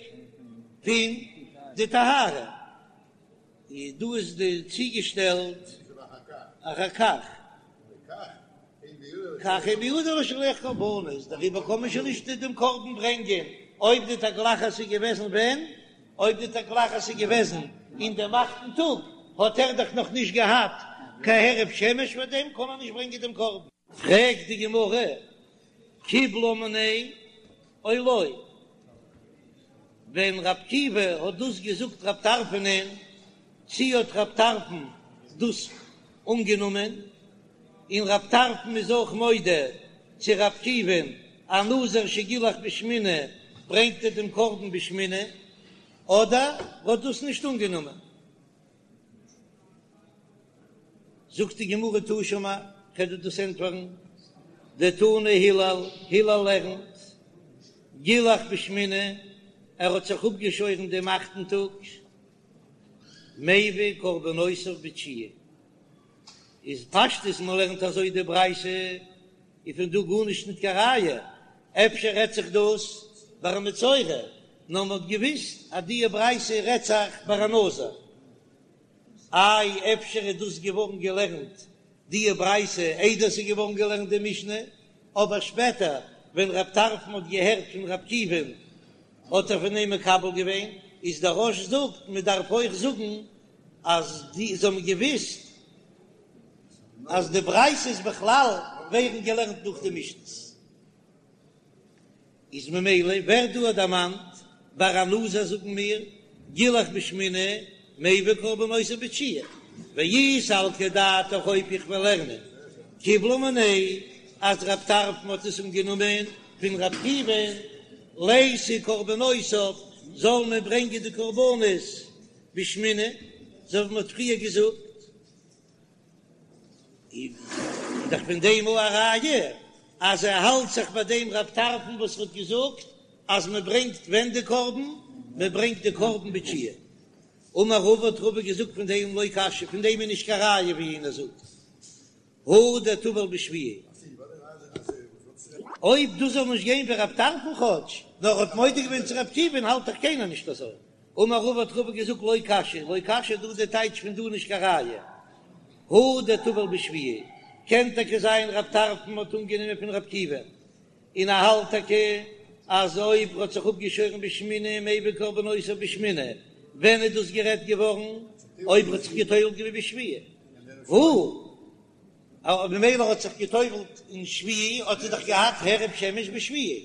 פון די טהרה, איז דא איז די צוגעשטעלט אחר כך, כך אין בידו לשלח קרבנות, דעריבער קען מען שוין נישט דעם קרבן ברענגען אויב די תגלחת איז געוועזן ווען? אויב די תגלחת איז געוועזן אין דעם אכטן טאג האט ער דאך נאך נישט געהאט קיין הערב שמש פאר דעם קען ער נישט ברענגען דעם קרבן. פרעגט די גמרא. קיבלה מיניה או לא, ווען ר' עקיבא האט דאס געזאגט רב טרפנ'ען, צי האט רב טרפון דאס אנגענומען, און רב טרפון איז אויך מודה צו ר' עקיבא'ן א נזיר שגילח בשמיני ברענגט ער דעם קרבן בשמיני, אדער האט דאס נישט אנגענומען. זאגט די גמרא תא שמע, כ'וועל דיר דאס ענטפערן, דתני הלל, הלל לערנט, גילח בשמיני, ער האט זיך אפגעשוירן דעם אכטן טאג, מביא קרבנותיו בתשיעי, איז פשטות מען לערנט אזוי די ברייתא, איז פון דא גארנישט ניט קיין ראיה, אפשר רעדט זיך דאס ביי א מצורע, נאר מען האט געוויסט אז די ברייתא רעדט זיך ביי א נזיר. איי אפשר איז דאס געווארן געלערנט די ברייתא איידער ס'איז געווארן געלערנט די משנה, אבער שפעטער ווען רב טרפון האט געהערט פון ר' עקיבא'ן האט ער פון אים מקבל געווען, איז דער רא"ש זאגט מען דארף אויך זאגן אז די זיי האבן געוויסט אז די ברייתות בכלל ווערן געלערנט נאך די משנה'ס. איז ממילא ווערט דא דערמאנט ביי א נזיר זאגן מיר גילח בשמיני מביא קרבנותיו בתשיעי ואי סלקא דעתך אויב איך וועל לערנען קיבלה מיניה אז רב טרפון האט עס אנגענומען פון ר' עקיבא'ן ליתי קרבנותיו זאל מען ברענגען די קרבנות בשמיני אזוי ווי מען האט פריער געזאגט. איז דאך פון דעם א ראיה אז ער האלט זיך ביי דעם רב טרפון וואס האט געזאגט אז מען ברענגט ווען די קרבן, מען ברענגט די קרבן בתשיעי. אמר רבא האט רבא געזאגט פון דעם לא קשיא, פון דעם איז נישט קיין ראיה ווי איינער זאגט הא דטבל בשביעי. אויב דאס זאל נישט גיין ווי רב טרפון כאטש, נאר ער האט מודה געווען צו ר' עקיבא'ן האלט דאך קיינער נישט אזוי. אמר רבא האט רבא געזאגט לא קשיא, לא קשיא דא די טייטש פון דא נישט קיין ראיה. הא דטבל בשביעי, קען טאקע זיין רב טרפון האט אנגענומען פון ר' עקיבא, און ער האלט טאקע אז אויב ר'האט זיך אפגעשוירן בשמיני מביא קרבנותיו בשמיני, ווען איז דאס גערעדט געווארן? אויב ר'האט זיך געטובל'ט געווען בשביעי. הא ממילא האט זיך געטובל'ט אין שביעי האט ער דאך געהאט הערב שמש בשביעי.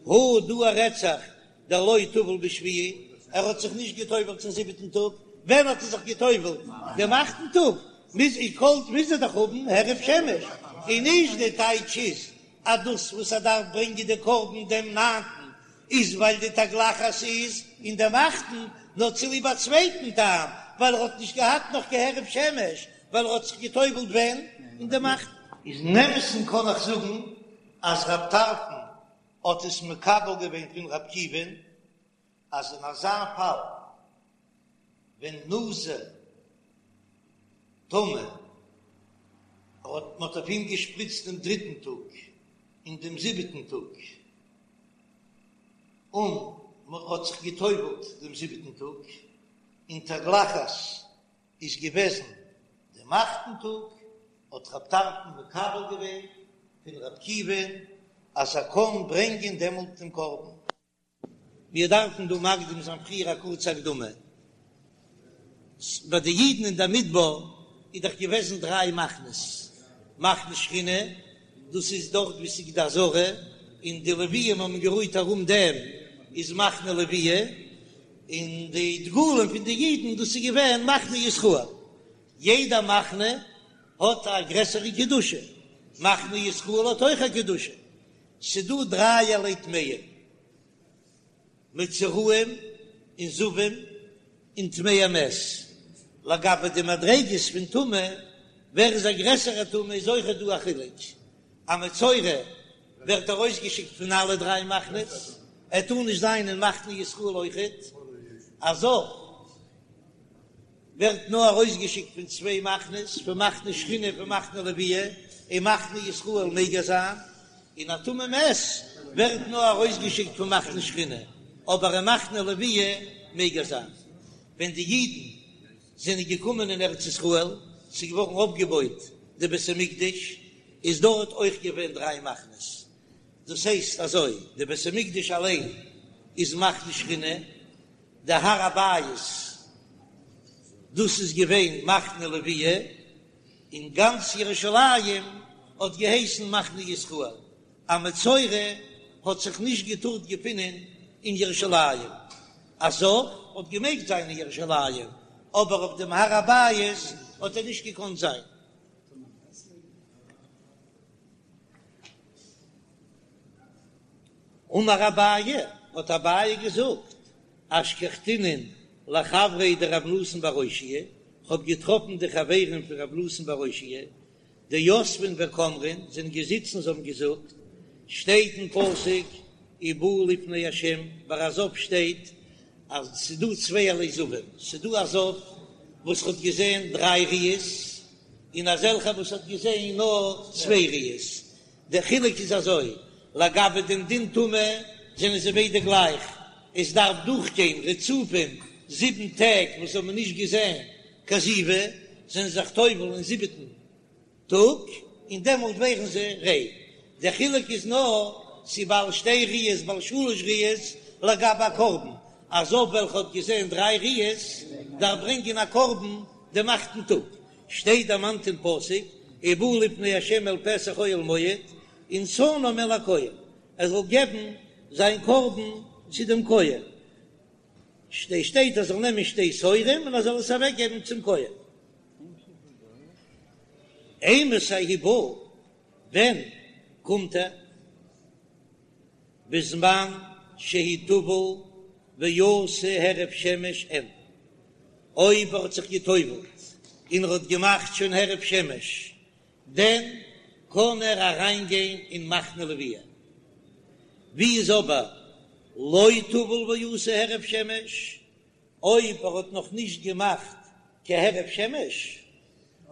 הא דא רעדט זיך דלא טבל בשביעי, ער האט זיך נישט געטובל'ט צום זיבעטן טאג, ווען האט ער זיך געטובל'ט? דעם אכטן טאג, מוז איך קאלט מוז ער דאך האבן הערב שמש, און נישט די טייטש איז אז דאס וואס ער דארף ברענגען די קרבן דעם ניינטן איז ווייל די תגלחת איז אין דעם אכטן, נאר צוליב א צווייטן טעם, ווייל ער האט נישט געהאט נאך קיין הערב שמש, ווייל ער האט זיך געטובל'ט ווען? אין דעם אכטן. איז אין אמת'ן קען איך זאגן אז רב טרפון האט עס מקבל געווען פון ר' עקיבא'ן אז אין אזא פאל ווען נזיר טמא האט מען האט אויף אים געשפריצט דעם דריטן טאג און דעם זיבעטן טאג און מען האט זיך גע'טובל'ט דעם זיבעטן טאג און תגלחת איז געוועזן דעם אכטן טאג, האט רב טרפון מקבל געווען פון ר' עקיבא'ן אז ער קען ברענגען דעמאלט דעם קרבן. מיר דארפן דא מקדים זיין פריער א קורצע הקדמה. ביי די אידן אין דער מדבר איז דאך געוועזן דריי מחנות, מחנה שכינה, דאס איז דארט וואו ס'איז די עזרה, און די לוויים האבן גערוהט ארום דעם, איז מחנה לוויה, און די דגלים פון די אידן, דאס איז געווען מחנה ישראל. יעדע מחנה האט א גרעסערע קדושה, מחנה ישראל האט אויך א קדושה. ס'דא דרייערליי טמאים, מצורעים און זבים און טמאי מת. לגבי די מדריגות פון טומאה, ווער איז א גרעסערע טמא איז אויכעט דא א חילוק. א מצורע ווערט ארויסגעשיקט פון אלע דריי מחנות, ער טאר נישט זיין אין מחנה ישראל אויכעט. א זב ווערט נאר ארויסגעשיקט פון צוויי מחנות, פון מחנה שכינה און פון מחנה לוויה, אין מחנה ישראל מעג ער זיין, און א טמא מת ווערט נאר ארויסגעשיקט פון מחנה שכינה, אבער אין מחנה לוויה מעג ער זיין. ווען די אידן זענען געקומען אין ארץ ישראל, ס'איז געווארן אויפגעבויט די בית המקדש, איז דארט אויך געווען דריי מחנות, דאס הייסט אזוי, די בית המקדש אליין איז מחנה שכינה, די הר הבית דאס איז געווען מחנה לוויה, און גאנץ ירושלים האט געהייסן מחנה ישראל. א מצורע האט זיך נישט געטארט געפינען אין ירושלים, א זב האט געמעגט זיין אין ירושלים, אבער אויף דעם הר הבית האט ער נישט געקאנט זיין. אמר אביי, האט אביי געזאגט, אשכחתינון לחבריה דרב נתן בר אושעיא, כ'האב געטראפן די חברים פון רב נתן בר אושעיא, דיתבין וקאמרין, זענען געזיצן זיי האבן געזאגט, שטייט אין פסוק ובא לפני ה', ביי א זב שטייט אז ס'איז דא צווייערליי זבים, ס'איז דא א זב וואס האט געזען דריי ראיות, און אזעלכע וואס האט געזען נאר צוויי ראיות, דער חילוק איז אזוי, לגבי דעם דין טומאה זענען זיי ביידע גלייך, עס דארף דורכגיין רצופים זיבן טעג וואס האבן נישט געזען קיין זיבה, זענען זיך טובל אין זיבעטן טאג און דעמאלט ווערן זיי ריין, דער חילוק איז נאר צו בעל שתי ראיות בעל שלש ראיות לגבי א קרבן, א זב וועלכע האט געזען דריי ראיות דארף ברענגען א קרבן דעם אכטן טאג, שטייט דערמאנט אין פסוק ובא לפני ה' אל פתח אוהל מועד ונתנם אל הכהן, ער זאל געבן זיין קרבן צו דעם כהן, שטייט ער זאל נעמען שתי תורים און ער זאל עס אוועק געבן צום כהן. אימתי הוא בא, ווען קומט ער? בזמן שהוא טבל ועשה הערב שמש אין, אויב ער האט זיך גע'טובל'ט און ער האט געמאכט שוין הערב שמש, דען קען ער אריין גיין אין מחנה לוויה. ווי איז אבער לא טבל ועשה הערב שמש, אויב ער האט נאך נישט געמאכט קיין הערב שמש,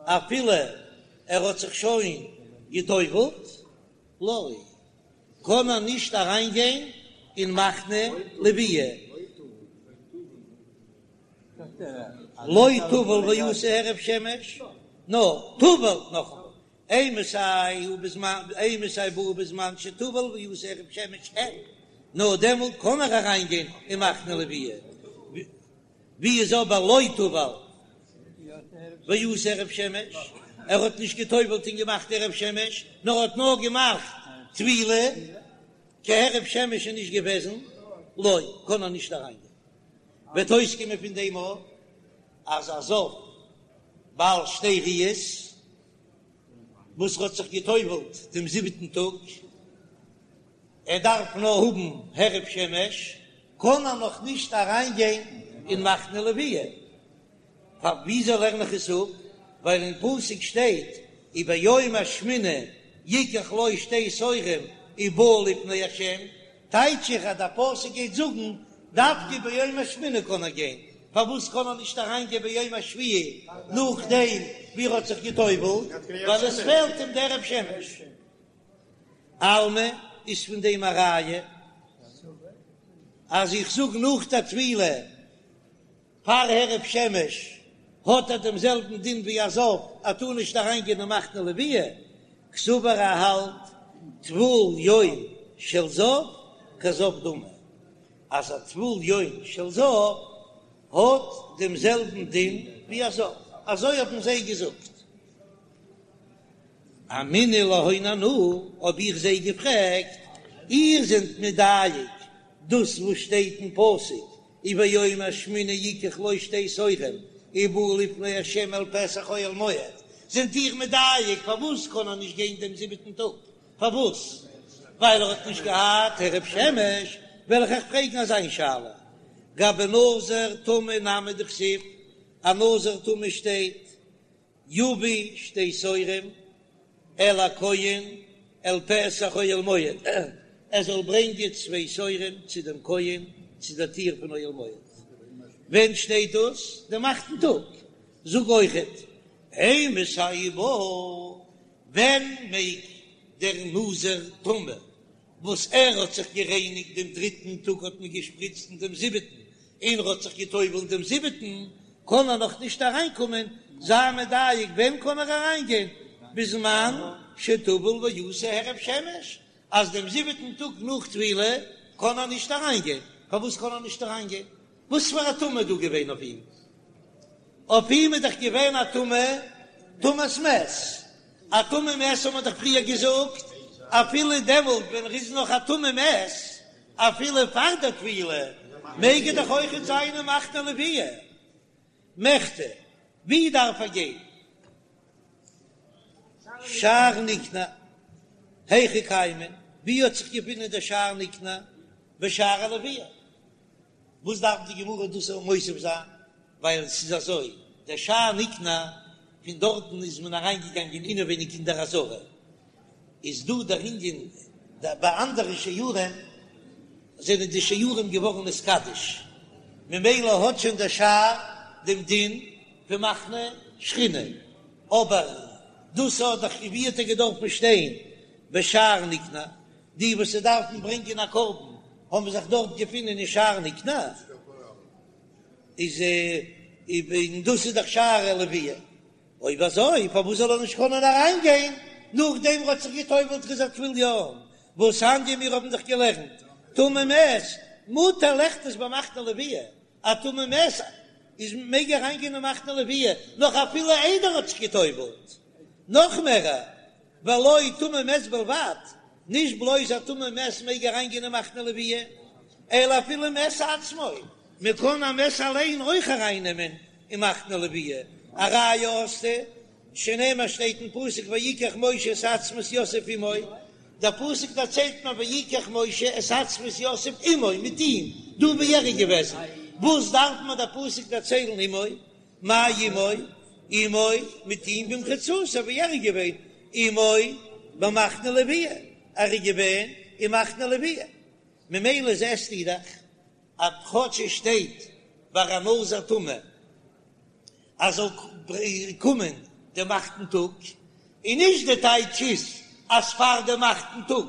אפילו ער האט זיך שוין גע'טובל'ט, לא, קען ער נישט אריין גיין אין מחנה לוויה. לא טבל ועשה הערב שמש, נאר טבל נאכאמאל, אימתי הוא בזמן, אימתי בא בזמן שטבל ועשה הערב שמש אין, נאר דעמאלט קען ער אריין גיין אין מחנה לוויה, ווי איז אבער לא טבל ועשה הערב שמש, ער האט נישט געטובלט און געמאכט הערב שמש, נאר האט נאר געמאכט טבילה, קיין הערב שמש איז נישט געוועזן, לא, קען ער נישט אריין גיין. וועט אויסקומען פון דעם אויך אז א זב בעל שתי ראיות וואס האט זיך גע'טובל'ט דעם זיבעטן טאג, ער דארף נאר האבן הערב שמש, קען ער נאך נישט אריין גיין אין מחנה לוויה. פאר וויאזוי לערן איך עס אפ? ווייל אין פסוק שטייט וביום השמיני יקח לו שתי תורים ובא לפני השם, טייטש איך אז דער פסוק גייט זאגן דווקא ביום השמיני קען ער גיין, פארוואס קען ער נישט אריין גיין ביום השביעי נאכדעם ווי ער האט זיך גע'טובל'ט, ווייל עס פעלט אים דער הערב שמש. אלמא איז פון דעם א ראיה אז איך זאג נאך דער טבילה פאר הערב שמש האט ער דעם זעלבן דין ווי א זב, ער טאר נישט אריין גיין אין מחנה לוויה, קסבר ער האלט טבול יום של זב כזב דמי, אז א טבול יום של זב האט דעם זעלבן דין ווי א זב, אזוי האבן זיי געזאגט. אמינא להון אנא, האב איך זיי געפרעגט, איר זענט מדייק דאס וואס שטייט אין פסוק וביום השמיני יקח לו שתי תורים ובא לפני ה' אל פתח אוהל מועד, זענט איר מדייק פארוואס קען ער נישט גיין דעם זיבעטן טאג? פארוואס? ווייל ער האט נישט געהאט הערב שמש? וועל איך אייך פרעגן אזא שאלה, גבי נזיר טמא נמי דכתיב, א נזיר טמא שטייט יביא שתי תורים אל הכהן אל פתח אוהל מועד, ער זאל ברענגען צוויי תורים צו דעם כהן צו דער טיר פון אוהל מועד. ווען שטייט דאס? דעם אכטן טאג. זאג אויכעט, אימתי הוא בא, ווען מעג דער נזיר טמא וואס ער האט זיך גערייניגט דעם דריטן טאג האט מען געשפריצט אין דעם זיבעטן, און ער האט זיך געטובלט דעם זיבעטן, קען ער נאך נישט אריינקומען, זיי מדייק ווען קען ער אריינגיין, בזמן שטבל ועשה הערב שמש, אז דעם זיבעטן טאג נאך טבילה קען ער נישט אריינגיין, פארוואס קען ער נישט אריינגיין? וואס פאר א טומאה איז דא געווען אויף אים? אויף אים איז דאך געווען א טומאה, טומאת מת, א טמא מת האט מען דאך פריער געזאגט. אפילו דעמאלט ווען ער איז נאך א טמא מת, אפילו פאר דער טבילה, מעג ער דאך אויכעט זיין אין מחנה לוויה. מכדי, ווי דארף ער גיין? שער ניקנור, היכא קיימא, ווי האט זיך געפונען דער שער ניקנור? בשערי לוויה. וואס דארף די גמרא דאס מוסיף זיין? ווייל ס'איז אזוי, דער שער ניקנור, פון דארטן איז מען אריינגעגאנגען אינעווייניג אין דער עזרה, איז דא דער ענין, ביי אנדערע שערים זענען די שערים געווארן נתקדש, ממילא האט שוין דער שער דעם דין פון מחנה שכינה, אבער דאס האט דאך ווי האט ער געדארפן שטיין בשער ניקנור, די וואס דארפן ברענגען א קרבן האבן זיך דארט געפונען אין שער ניקנור, איז און דאס איז דאך שער הלוויה, אויב אזוי פארוואס זאל ער נישט קענען אריין גיין נאכדעם ער האט זיך געטובלט ס'איז א טבול יום, והתניא מיר האבן דאך געלערנט טמא מת מותר ליכנס במחנה לוויה, א טמא מת איז מעג אריין גיין אין מחנה לוויה נאך אפילו איידער ער האט זיך געטובלט, נאך מער ולא טמא מת בלבד, נישט בלויז א טמא מת מעג אריין גיין אין מחנה לוויה, אלא אפילו מת עצמו, מען קען א מת אליין אויך אריין נעמען אין מחנה לוויה, א ראיה האסטו, שנאמר שטייט אין פסוק ויקח משה את עצמות יוסף עמו, דער פסוק דערציילט מיר ויקח משה את עצמות יוסף עמו, מיט אים, דא ווי ער איז געוועזן, וואס דארף מיר דער פסוק דערציילן עמו, מאי עמו, עמו, מיט אים במחיצתו ווי ער איז געווען, עמו במחנה לוויה, ער איז געווען אין מחנה לוויה, ממילא זעסטו דאך אז כאטש עס שטייט ביי א נזיר טמא אז זאל קומען דעם אכטן טאג, און נישט די טייטש איז אז פאר דעם אכטן טאג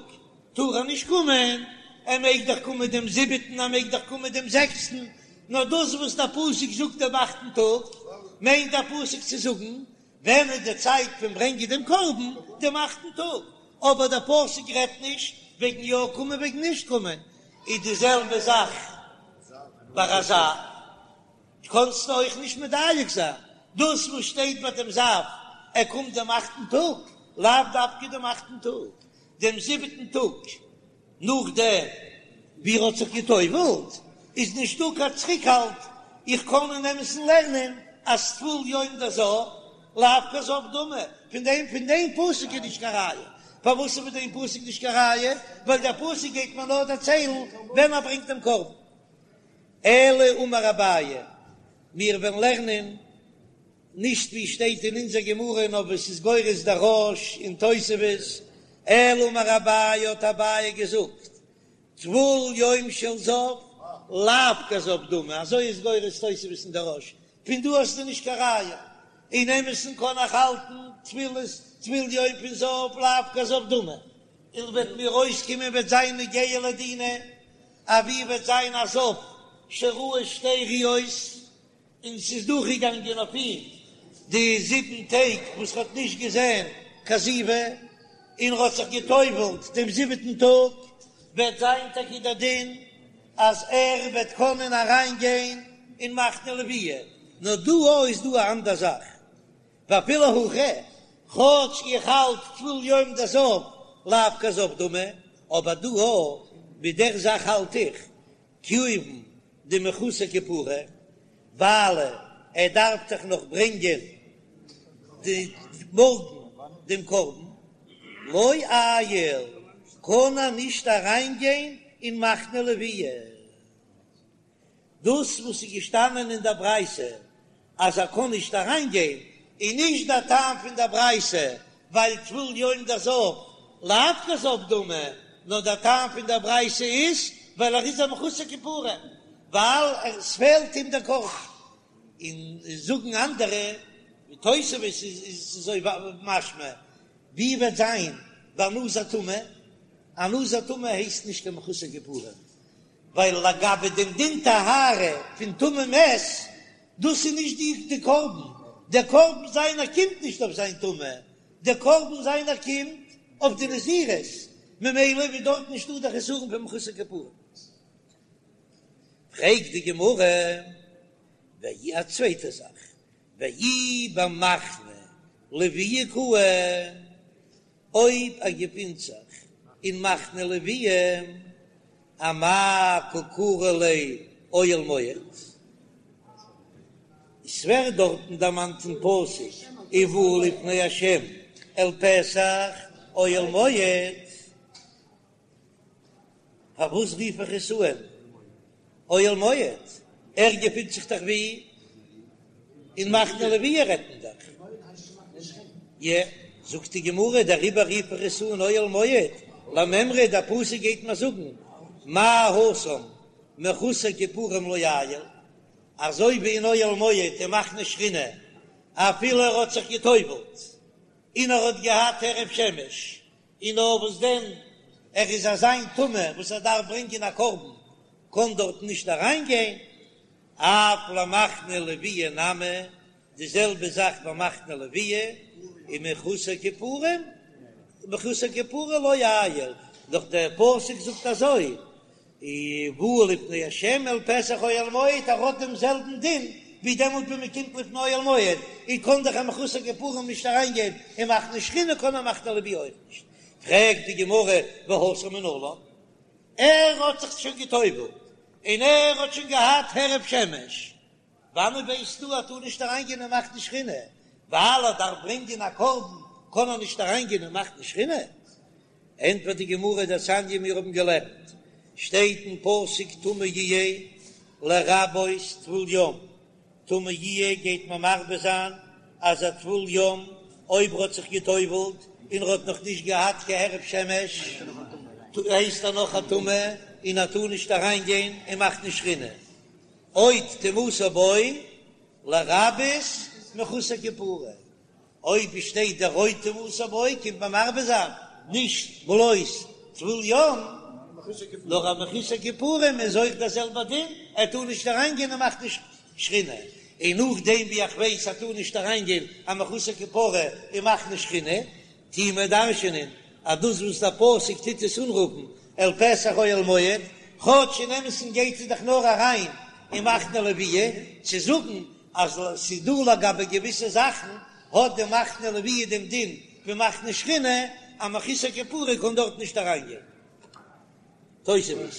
טאר ער נישט קומען, ער מעג דאך קומען דעם זיבעטן, ער מעג דאך קומען דעם זעקסטן, נאר דאס וואס דער פסוק זאגט דעם אכטן טאג, מיינט דער פסוק צו זאגן ווען איז די צייט פון ברענגען דעם קרבן, דעם אכטן טאג, אבער דער פסוק רעדט נישט וועגן יא קומען וועגן נישט קומען, איז די זעלבע זאך ביי א זב, קאנסטו אויך נישט מדייק זיין דאס וואס שטייט ביי דעם זב, ער קומט דעם אכטן טאג, לאו דווקא דעם אכטן טאג, דעם זיבעטן טאג נאכדעם ווי ער האט זיך גע'טובל'ט, איז נישטא קיין צוריקהאלט, איך קען אין אמת'ן לערנען אז טבול יום דזב לאו כזב דמי, פון דעם פון דעם פסוק איז נישט קיין ראיה, פארוואס איז פון דעם פסוק נישט קיין ראיה? ווייל דער פסוק גייט מיר נאר דערציילן ווען ער ברענגט דעם קרבן. אלא אמר אביי, מיר וועלן לערנען נישט ווי שטייט אין אונזער גמרא נאר ווי ס'איז גורס דער רא"ש און תוספות, אלא אמר אביי האט אביי געזאגט, טבול יום של זב לאו כזב דמי, אזוי איז גורס תוספות און דער רא"ש, פון דא האסטו נישט קיין ראיה, אין אמת'ן קען איך האלטן טבילת טבול יום פון זב לאו כזב דמי, און וועט מיר אויסקומען וועט זיין נוגע לדינא, אויב וועט זיין א זב שראה שתי ראיות. און ס'איז דורכגעגאנגען אויף אים די זיבן טעג וואס ר'האט נישט געזען קיין זיבה, און ר'האט זיך גע'טובל'ט דעם זיבעטן טאג, וועט זיין טאקע דער דין אז ער וועט קענען אריינגיין אין מחנה לוויה, נאר דא אויך איז דא א אנדער זאך, ואפילו הכי, כאטש איך האלט טבול יום דזב לאו כזב דמי, אבער דא אויך ביי דער זאך האלט איך כיון דמחוסר כפרה, ווייל ער דארף דאך נאך ברענגען די מארגן דעם קרבן, לא עייל, קען ער נישט אריינגיין אין מחנה לוויה. דאס וואס איז געשטאנען אין דער ברייתא אז ער קען נישט אריין גיין, איז נישט דער טעם פון דער ברייתא ווייל טבול יום דזב לאו כזב דמי, נאר דער טעם פון דער ברייתא איז ווייל ער איז א מחוסר כפרה, ווייל עס פעלט אים דער קרבן. און זאגן אנדערע, ווי תוספות איז אזוי משמע, ווי וועט זיין ביי נזיר טמא? א נזיר טמא הייסט נישט קיין מחוסר כפרה, ווייל לגבי דעם דין טהרה פון טמא מת, דאס איז נישט די די קרבן, דער קרבן זיינער קומט נישט אויף זיין טומאה, דער קרבן זיינער קומט אויף די נזירות, ממילא איז דארט נישטא דער חסרון פון מחוסר כפרה. פרעגט די גמרא, ואי א צווייטע זאך, ואי במחנה לוויה קאי, אויב ער געפינט זיך. אין מחנה לוויה, אמאי קא קרי ליה אוהל מועד? עס ווערט דארטן דערמאנט אין פסוק ובאו לפני ה' אל פתח אוהל מועד, פארוואס רוף איך עס אן אוהל מועד? ער געפינט זיך דאך ווי אין מחנה לוויה רעדט מען דאך. יע, זאגט די גמרא, דעריבער רוף איך עס אן אוהל מועד, למימרא דער פסוק גייט מיר זאגן מה התם מחוסר כיפורים לא עייל, אזוי ווי אין אוהל מועד אין מחנה שכינה אפילו ער האט זיך גע'טובל'ט און ער האט געהאט הערב שמש, און נאר וואס דען ער איז אזא מין טמא וואס ער דארף ברענגען א קרבן קען דארט נישט אריין גיין, אף למחנה לוויה נמי, די זעלבע זאך ביי מחנה לוויה, און מחוסר כיפורים, מחוסר כפרה לא עייל, דאך דער פסוק זאגט אזוי, ובאו לפני ה' אל פתח אוהל מועד, ער האט דעם זעלבן דין ווי דעמאלט ווען מען קומט לפני אוהל מועד, און קען דאך א מחוסר כיפורים נישט אריין גיין אין מחנה שכינה קען א מחנה לוויה אויך נישט, פרעגט די גמרא והתם מנלן, ער האט זיך שוין גע'טובל'ט און ער האט שוין געהאט הערב שמש, וואנען ווייסטו אז ער טאר נישט אריינגיין אין מחנה שכינה? ווייל ער דארף ברענגען א קרבן קען ער נישט אריינגיין אין מחנה שכינה? ענטפערט די גמרא דתניא מיר האבן געלערנט שטייט אין פסוק טמא יהיה לרבות טבול יום, טמא יהיה גייט מען מרבה זיין אז א טבול יום אויב ער האט זיך גע'טובל'ט און ער האט נאך נישט געהאט קיין הערב שמש הייסט ער נאך א טמא און ער טאר נישט אריינגיין אין מחנה שכינה. עוד טומאתו בו לרבות מחוסר כפרה, אויב שטייט דער עוד טומאתו בו קומט מען מרבה זיין נישט בלויז טבול יום, נאר א מחוסר כיפורים איז אויך דער זעלבער דין, ער טאר נישט אריין גיין אין מחנה שכינה, און נאכדעם ווי איך ווייס ער טאר נישט אריין גיין א מחוסר כפרה אין מחנה שכינה, טוהן מיר דרש'ענען אז דאס וואס דער פסוק טוט עס אנרופן אל פתח אוהל מועד, כאטש אין אמת'ן גייט עס דאך נאר אריין אין מחנה לוויה, צו זאגן אז ס'איז דא לגבי געוויסע זאכן האט די מחנה לוויה דעם דין ווי מחנה שכינה, א מחוסר כפרה קען דארט נישט אריינגיין. תוספות.